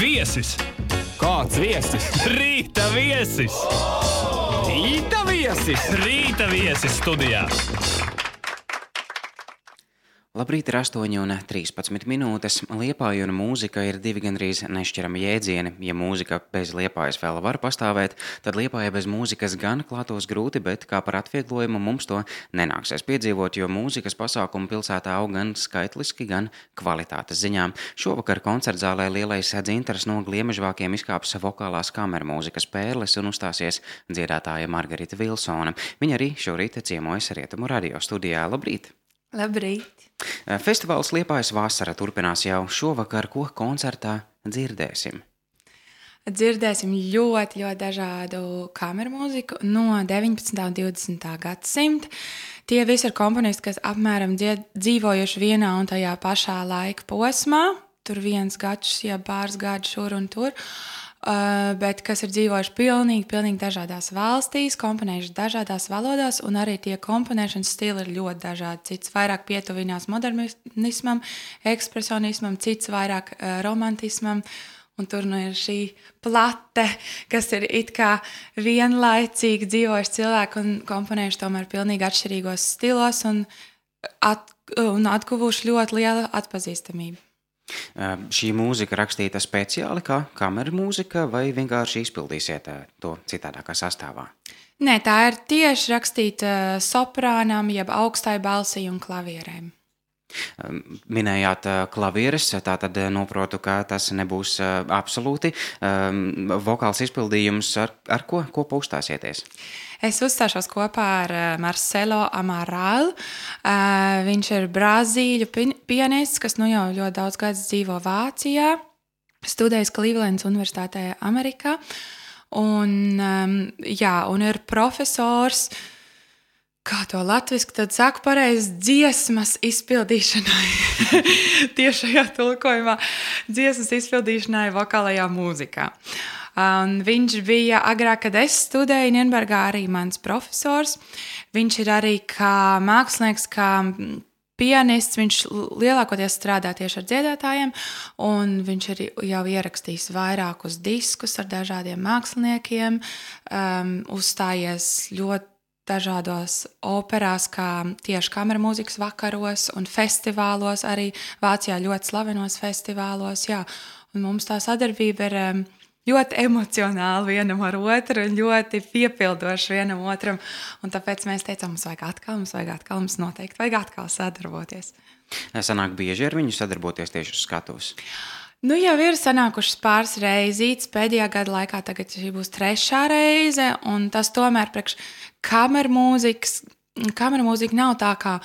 Viesis! Kāds viesis? Rīta viesis! Rīta viesis! Rīta viesis studijā! Labrīt, ir 8:13 minūtes. Liepāja un mūzika ir divi gandrīz nešķirami jēdzieni. Ja mūzika bez Liepājas vēl var pastāvēt, tad Liepāja bez mūzikas gan klātos grūti, bet kā par atvieglojumu mums to nenāksies piedzīvot, jo mūzikas pasākumu pilsētā aug gan skaitliski, gan kvalitātes ziņā. Šovakar koncertzālē Lielais dzintars no Gliemežvākiem izkāps vokālās kamermūzikas pērles un uzstāsies dziedātāja Margarita Vilsone. Viņa arī šorīt ciemojas Rietumu radio studijā. Labrīt! Labrīt! Festivāls Liepājas vasara turpinās jau šovakar, ko koncertā dzirdēsim. Dzirdēsim ļoti dažādu kameru mūziku no 19. un 20. gadsimta. Tie visi ir komponisti, kas apmēram dzīvojuši vienā un tajā pašā laika posmā. Tur viens gads, pāris gadi šur un tur. Bet kas ir dzīvojuši pilnīgi dažādās valstīs, komponējuši dažādās valodās, un arī tie komponēšanas stili ir ļoti dažādi. Cits vairāk pietuvinās modernismam, ekspresionismam, cits vairāk romantismam, un tur ir šī plate, kas ir it kā vienlaicīgi dzīvojuši cilvēki un komponējuši tomēr pilnīgi atšķirīgos stilos un atguvuši ļoti lielu atpazīstamību. Šī mūzika rakstīta speciāli kā kameru mūzika vai vienkārši izpildīsiet to citādākā sastāvā? Nē, tā ir tieši rakstīta soprānam, jeb augstai balsī un klavierēm. Minējāt klavieres, tātad noprotu, ka tas nebūs absolūti vokāls izpildījums. Ar ko uzstāsieties? Es uzstāšos kopā ar Marcelo Amaral. Viņš ir brazīļu pianists, kas jau ļoti daudz gadus dzīvo Vācijā, studējis Clevelandas Universitātē Amerikā, un ir profesors, kā to latviski tad saka pareizi, dziesmas izpildīšanai, tiešajā tulkojumā, dziesmas izpildīšanai vokālajā mūzikā. Viņš bija agrāk, kad es studēju Nienbergā, arī mans profesors. Viņš ir arī kā mākslinieks, kā pianists, viņš lielākoties strādā tieši ar dziedātājiem, un viņš ir jau ierakstījis vairākus diskus ar dažādiem māksliniekiem, uzstājies ļoti dažādos operās, kā tieši kamermūzikas vakaros un festivālos, arī Vācijā ļoti slavenos festivālos. Jā. Un mums tā sadarbība ir ļoti emocionāli vienam ar otru un ļoti piepildoši vienam otram. Un tāpēc mēs teicām, mums noteikti vajag atkal sadarboties. Sanāk bieži ar viņu sadarboties tieši uz skatuves? Jau ir sanākušas pāris reizītes pēdējā gada laikā, tagad šī būs 3. reize, un tas tomēr priekš kamermūzika nav tā kā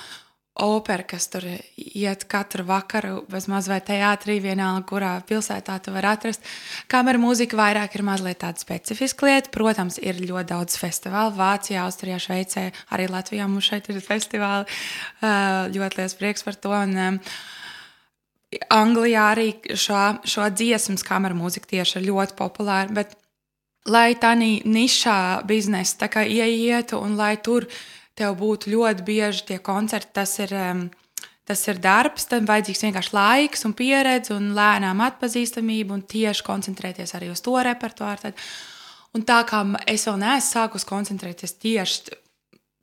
opera, kas tur iet katru vakaru, bezmaz vai teātrī, vienalga, kurā pilsētā tu var atrast. Kamermūzika vairāk ir mazliet tāda specifiska lieta. Protams, ir ļoti daudz festivālu. Vācijā, Austrijā, Šveicē, arī Latvijā mums šeit ir festivāli. Ļoti liels prieks par to. Un, Anglijā arī šo dziesmas kamermūzika tieši ir ļoti populāra, bet lai tā nišā biznesa tā kā ieietu un lai tur tev būtu ļoti bieži tie koncerti, tas ir darbs, tam vajadzīgs vienkārši laiks un pieredze un lēnām atpazīstamība un tieši koncentrēties arī uz to repertuāru. Un tā kā es vēl neesmu sākus koncentrēties tieši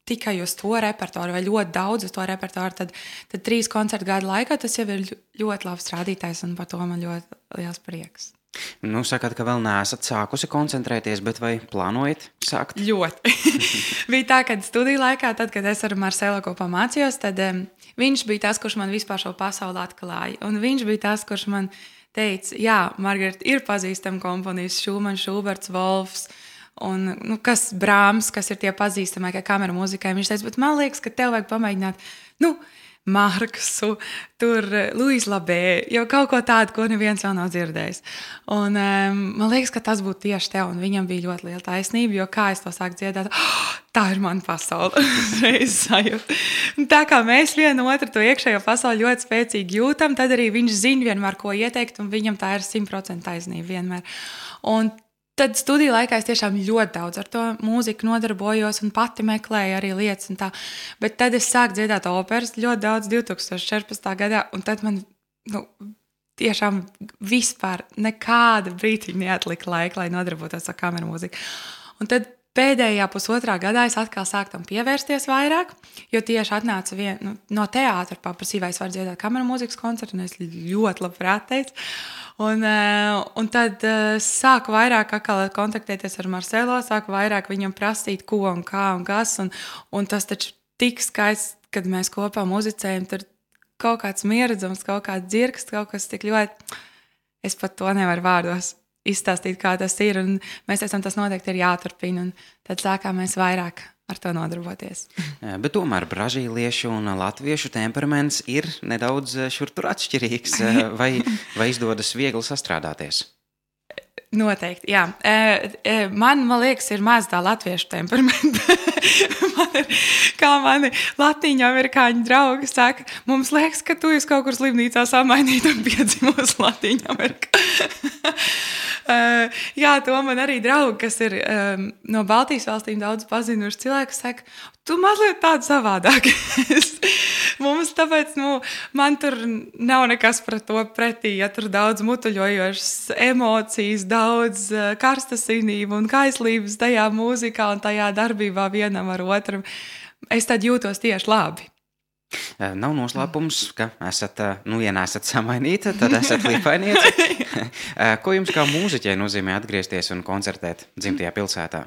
tikai uz to repertuāru vai ļoti daudz uz to repertuāru, tad 3 koncertu gadu laikā tas jau ir ļoti labs rādītājs un par to man ļoti liels prieks. Sakat, ka vēl neesat sākusi koncentrēties, bet vai plānojat sākt? Ļoti. Bija tā, ka studiju laikā, tad, kad es ar Marcelo kopā mācījos, tad viņš bija tas, kurš man vispār šo pasauli atklāja. Un viņš bija tas, kurš man teica, jā, Margarita, ir pazīstami komponisti, Šumans, Šuberts, Volfs, un kas Brāms, kas ir tie pazīstamākie kameru mūzikai. Viņš teica, bet man liekas, ka tev vajag pamēģināt, Marksu, tur Luis Labē, jau kaut ko tādu, ko neviens vēl nav dzirdējis. Un man liekas, ka tas būtu tieši tev, un viņam bija ļoti liela taisnība, jo kā es to sāku dziedāt, tā ir mana pasaule. Tā kā mēs vienu otru to iekšējo pasauli ļoti spēcīgi jūtam, tad arī viņš zina vienmēr, ko ieteikt, un viņam tā ir 100% taisnība vienmēr. Un tad studiju laikā es tiešām ļoti daudz ar to mūziku nodarbojos un pati meklēju arī lietas un tā. Bet tad es sāku dziedāt operas ļoti daudz 2014. gadā, un tad man tiešām vispār nekāda brītiņa neatlika laika, lai nodarbotos ar kameru mūziku. Un tad pēdējā pusotrā gadā es atkal sāku tam pievērsties vairāk, jo tieši atnāca no teātra paprasīja, vai es varu dziedāt kameru mūzikas koncertu, un es ļoti labprāt teicu. Un tad sāku vairāk atkal kontaktēties ar Marcelo, sāku vairāk viņam prasīt, ko un kā un kas, un tas taču tik skaists, kad mēs kopā muzicējam, tur kaut kāds mieredzums, kaut kāds dzirksts, kaut kas tik ļoti, es pat to nevaru vārdos izstāstīt, kā tas ir, un mēs teicām, tas noteikti ir jāturpina, un tad sākām mēs vairāk ar to nodarboties. Bet tomēr brazīliešu un latviešu temperaments ir nedaudz šur tur atšķirīgs, vai izdodas viegli sastrādāties? Noteikti, jā. Man liekas, ir maz tā latviešu temperamenta. Kā mani latīņu amerikāņu draugi saka, mums liekas, ka tu esi kaut kur slimnīcā samainīt un piedzimos Latīņu Amerikā. Jā, to man arī draugi, kas ir no Baltijas valstīm daudz pazinuši cilvēki, saka, tu mazliet tādu savādāk. Mums tāpēc, man tur nav nekas pret to pretī, ja tur daudz mutuļojošas emocijas, daudz karstasinību un kaislības tajā mūzikā un tajā darbībā vienam ar otram. Es tad jūtos tieši labi. Nav noslēpums, ka esat, ja neesat samainīta, tad esat līpainieci. Ko jums kā mūziķei nozīmē atgriezties un koncertēt dzimtajā pilsētā?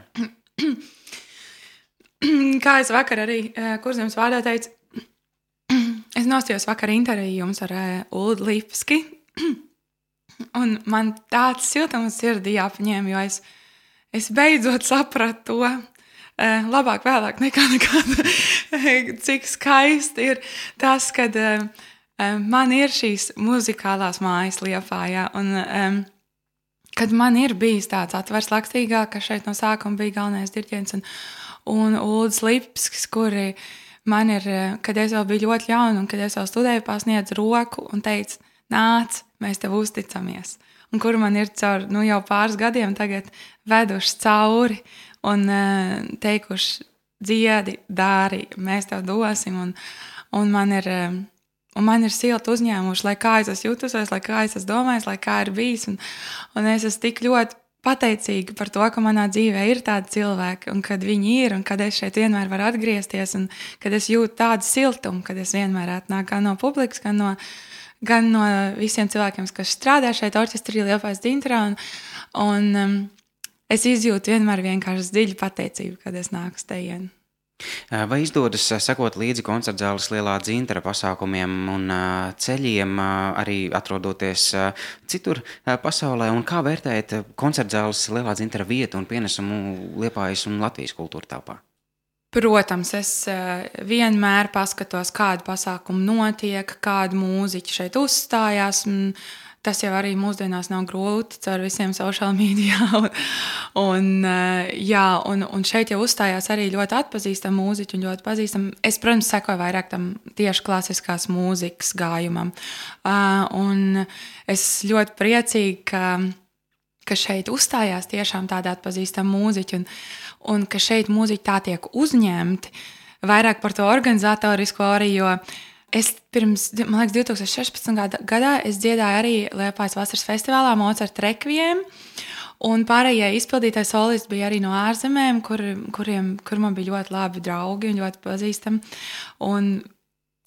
Kā es vakar arī Kurzemes vārdā teicu, es nostājos vakar interviju jums ar Uldu Lipski, un man tāds siltums sirdī jāpaņem, jo es beidzot sapratu to, labāk vēlāk nekā cik skaisti ir tas, kad man ir šīs muzikālās mājas Liepājā, un kad man ir bijis tāds atvers Lakstīgā, ka šeit no sākuma bija galvenais diriģents, un Uldis Lipskis, kuri man ir, kad es vēl biju ļoti jauna, un kad es vēl studēju, pasniedz roku un teica, nāc, mēs tev uzticamies. Un kuri man ir caur, jau pāris gadiem tagad veduši cauri, un teikuši, dziedi, dari, mēs tev dosim, un man ir silti uzņēmuši, lai kā es esmu jutusies, lai kā es esmu domājis, lai kā ir bijis, un es esmu tik ļoti pateicīga par to, ka manā dzīvē ir tādi cilvēki, un kad viņi ir, un kad es šeit vienmēr varu atgriezties, un kad es jūtu tādu siltumu, kad es vienmēr atnāku gan no publikas, gan no visiem cilvēkiem, kas strādā šeit orķestrī Liepājas dzintarā, un es izjūtu vienmēr vienkārši dziļu pateicību, kad es nāku uz tejienu. Vai izdodas sekot līdzi koncertzāles Lielā dzintara pasākumiem un ceļiem, arī atrodoties citur pasaulē, un kā vērtējat koncertzāles Lielā dzintara vietu un pienesumu Liepājas un Latvijas kultūra telpā? Protams, es vienmēr paskatos, kādu pasākumu notiek, kādu mūziķi šeit uzstājās. Tas jau arī mūsdienās nav grūti caur visiem social media. Un šeit jau uzstājās arī ļoti atpazīstami mūziķi un ļoti pazīstami. Es, protams, sekoju vairāk tam tieši klasiskās mūzikas gājumam. Un es ļoti priecīgi, ka šeit uzstājās tiešām tādi atpazīstami mūziķi un ka šeit mūziķi tā tiek uzņemti. Vairāk par to organizatorisko arī, jo es pirms, man liekas, 2016. gadā es dziedāju arī Liepājas vasaras festivālā Mozart Requiem, un pārējie izpildītāji solisti bija arī no ārzemēm, kur man bija ļoti labi draugi un ļoti pazīstami, un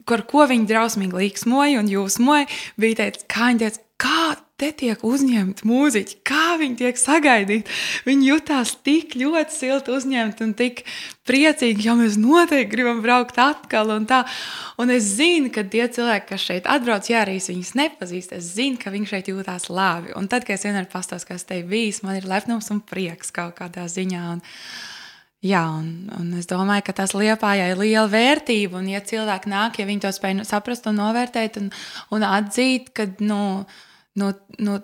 ko viņi drausmīgi līksmoja un jūsmoja, bija teicis, kā viņi teica, kā te tiek uzņemti mūziķi, kā viņi tiek sagaidīti. Viņi jutās tik ļoti silti uzņemti un tik priecīgi, jo mēs noteikti gribam braukt atkal un tā. Un es zinu, ka tie cilvēki, kas šeit atbrauc, ja arī viņus nepazīst, es zinu, ka viņi šeit jūtās labi. Un tad, kad es vienmēr pastāstu, kas te bijis, man ir lepnums un prieks kaut kādā ziņā. Un es domāju, ka tas Liepājai ir liela vērtība, un ja cilvēki nāk, ja viņi to spēj saprast un novērtēt un atzīt, ka,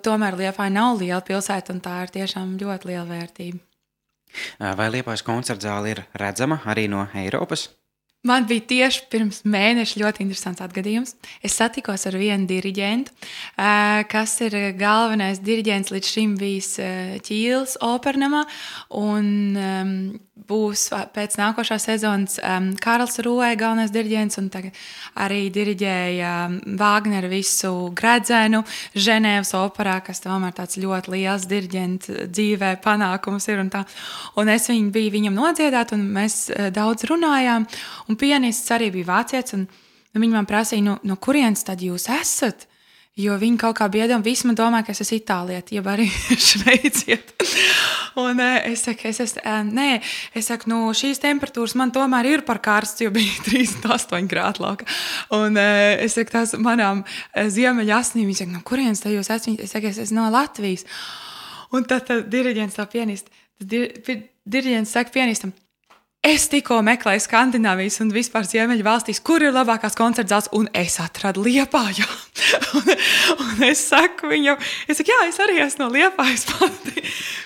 tomēr Liepāja nav liela pilsēta, un tā ir tiešām ļoti liela vērtība. Vai Liepājas koncertzāle ir redzama arī no Eiropas? Man bija tieši pirms mēneša ļoti interesants atgadījums. Es satikos ar vienu diriģentu, kas ir galvenais diriģents līdz šim bijis Ķīles opernamā, un būs pēc nākošā sezonas Kārls Rūē, galvenais diriģents, un tagad arī diriģēja Vāgneru visu Gredzenu Ženēvas operā, kas tomēr tāds ļoti liels diriģenta dzīvē panākums ir. Un es biju viņam nodziedāt, un mēs daudz runājām, un pianists arī bija vācietis, un viņi man prasīja, no kurienes tad jūs esat? Jo viņi kaut kā biedam, visi man domā, ka es esmu itālieti, jeb arī šveiciet. Un es saku, šīs temperatūras man tomēr ir par karsts, jo bija 38 grādi lauka. Un es saku, tās manām ziemeļa asnīm, viņi saka, no kurienes te jūs esat? Es saku, es esmu no Latvijas. Un tad diriģents tā pianista, diriģents saka pianistam, es tikko meklēju Skandināvijas un vispār Ziemeļu valstīs, kur ir labākās koncertzāles, un es atradu Liepājā. un es saku viņam, jā, es arī esmu no Liepājas pati.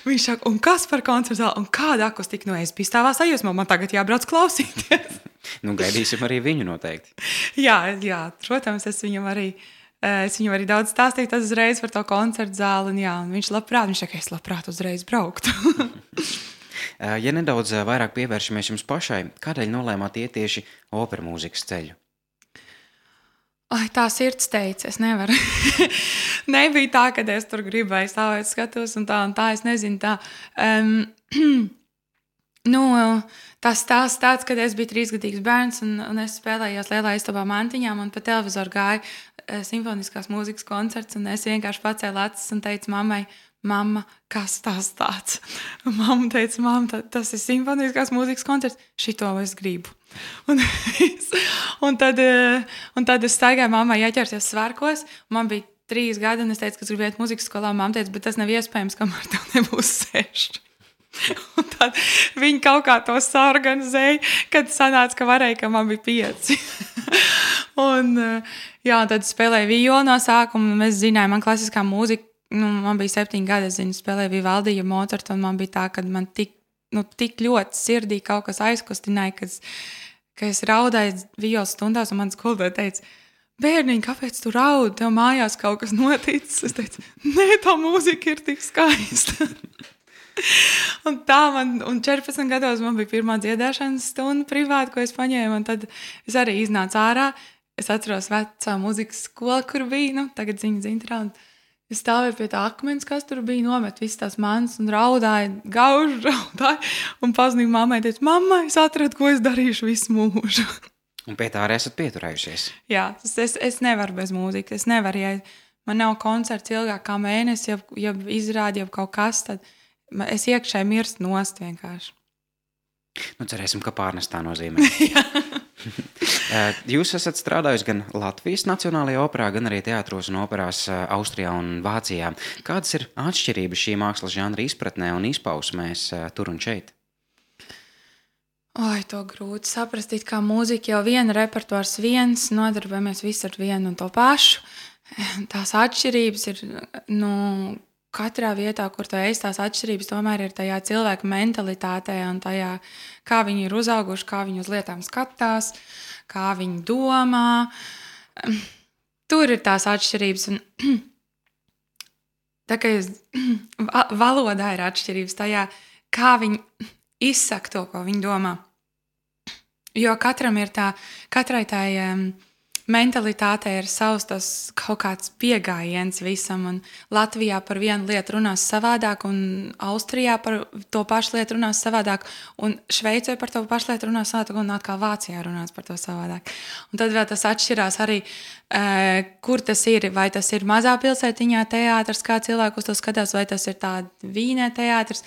Viņš saka, un kas par koncertzāli, un kāda akustika? Es biju stāvā sajūsmā, man tagad jābrauc klausīties. Gaidīsim arī viņu noteikti. jā, protams, es viņam arī daudz stāstīju uzreiz par to koncertzāli, un viņš saka, es labprāt uzreiz brauktu. Ja nedaudz vairāk pievēršamies jums pašai, kādēļ nolēmāt iet tieši opera mūzikas ceļu? Tā sirds teica, es nevaru. Nebija tā, ka es tur gribēju stāvēt skatos un tā, es nezinu tā. Tas stāsts tāds, kad es biju 3-gadīgs bērns un es spēlējos lielā istabā mantiņām un pa televizoru gāja simfoniskās mūzikas koncerts un es vienkārši pacēlu acis un teicu mammai, mamma, kas tas tāds? Un mamma teica, mamma, tas ir simfoniskās mūzikas koncerts, šito es gribu. Un tad es staigāju mammai ieķerties svārkos, man bija 3 gadi un es teicu, ka es gribu iet mūzikas skolā, mamma teica, bet tas nav iespējams, kamēr tev nebūs 6. Un tad viņi kaut kā to saorganizēja, kad sanāca, ka varēja, ka man bija 5. un tad spēlēju violu no sākuma, un mēs zinājām, man klasiskā mūzika, man bija 7 gadi, es spēlēju Vivaldija Mocartu, un man bija tā, ka man tik ļoti sirdī kaut kas aizkustināja, ka es raudāju violas stundās, un man skolotāja teica, bērniņ, kāpēc tu raudi? Tev mājās kaut kas noticis? Es teicu, nē, tā mūzika ir tik skaista. un 14 gados man bija pirmā dziedāšanas stunda privāti, ko es paņēmu, un tad es arī iznācu ārā. Es atceros vecā mūzikas skolu, kur bija, tagad ziņas intrā, un es stāvēju pie tā akmens, kas tur bija, nomet visas tās manas un raudāju, un pazudīju mammai, teicu, mamma, es atradu, ko es darīšu visu mūžu. Un pie tā arī esat pieturējušies. Jā, es nevaru bez mūzikas, es nevaru, ja man nav koncerts ilgāk kā mēnesi, ja izrādi jau kaut kas, tad es iekšēji mirst nost vienkārši. Cerēsim, ka pārnestā nozīmē. Jūs esat strādājusi gan Latvijas Nacionālajā operā, gan arī teātros un operās Austrijā un Vācijā. Kādas ir atšķirības šī mākslas žanra izpratnē un izpausmēs tur un šeit? To grūti saprast, kā mūzika jau viena repertuārs viens, nodarbojamies visi ar vienu un to pašu. Tās atšķirības ir, katrā vietā, kur tu esi, tās atšķirības tomēr ir tajā cilvēka mentalitātē un tajā, kā viņi ir uzauguši, kā viņi uz lietām skatās, kā viņi domā. Tur ir tās atšķirības. Un tā kā valodā ir atšķirības tajā, kā viņi izsaka to, ko viņi domā. Jo katrai tā mentalitātei ir savs tas kaut kāds pieejams visam, un Latvijā par vienu lietu runās savādāk, un Austrijā par to pašu lietu runās savādāk, un Šveicē par to pašu lietu runās savādāk, un atkal Vācijā runās par to savādāk. Un tad vēl tas atšķirās arī, kur tas ir, vai tas ir mazā pilsētiņā teātrs, kā cilvēku uz to skatās, vai tas ir tā Vīnē teātrs.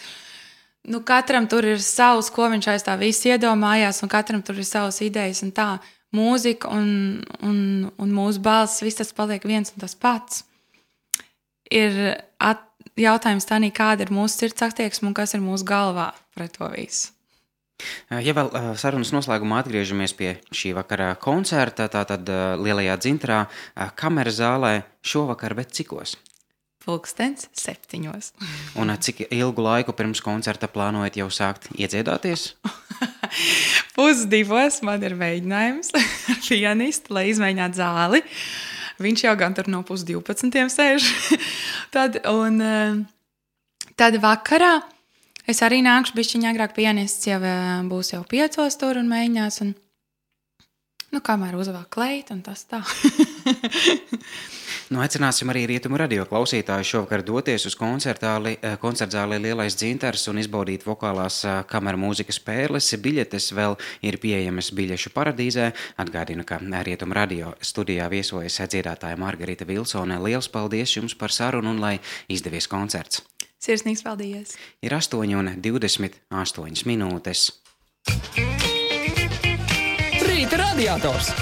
Katram tur ir savs, ko viņš aiz tā viss iedomājās, un katram tur ir savas idejas, un tā mūzika un mūsu balss, viss tas paliek viens un tas pats. Ir jautājums tā, kāda ir mūsu sirds attieksme un kas ir mūsu galvā pret to visu. Ja vēl sarunas noslēgumā atgriežamies pie šī vakara koncerta, tātad Lielajā Dzintrā, kameras zālē šovakar, bet cikos? 7:00. Un cik ilgu laiku pirms koncerta plānojat jau sākt iedziedāties? 1:30 man ir mēģinājums ar pianistu, lai izmēģinātu zāli. Viņš jau gan tur no 11:30 sēž. Tad vakarā Es arī nākšu bišķiņ agrāk, pianists jau būs jau 5 tur un mēģinās. Un, kamēr uzvāk kleit un tas tā. Aicināsim arī Rietumu radio klausītāju šovakar doties uz koncertzāli Lielais Dzintars un izbaudīt vokālās kameru mūzikas spēles. Biļetes vēl ir pieejamas biļešu paradīzē. Atgādinu, ka Rietumu radio studijā viesojas dziedātāja Margarita Vilsone. Liels paldies jums par sarunu un lai izdevies koncerts. Sirsnīgs paldies. Ir 8:28 minūtes. Rīta radiators.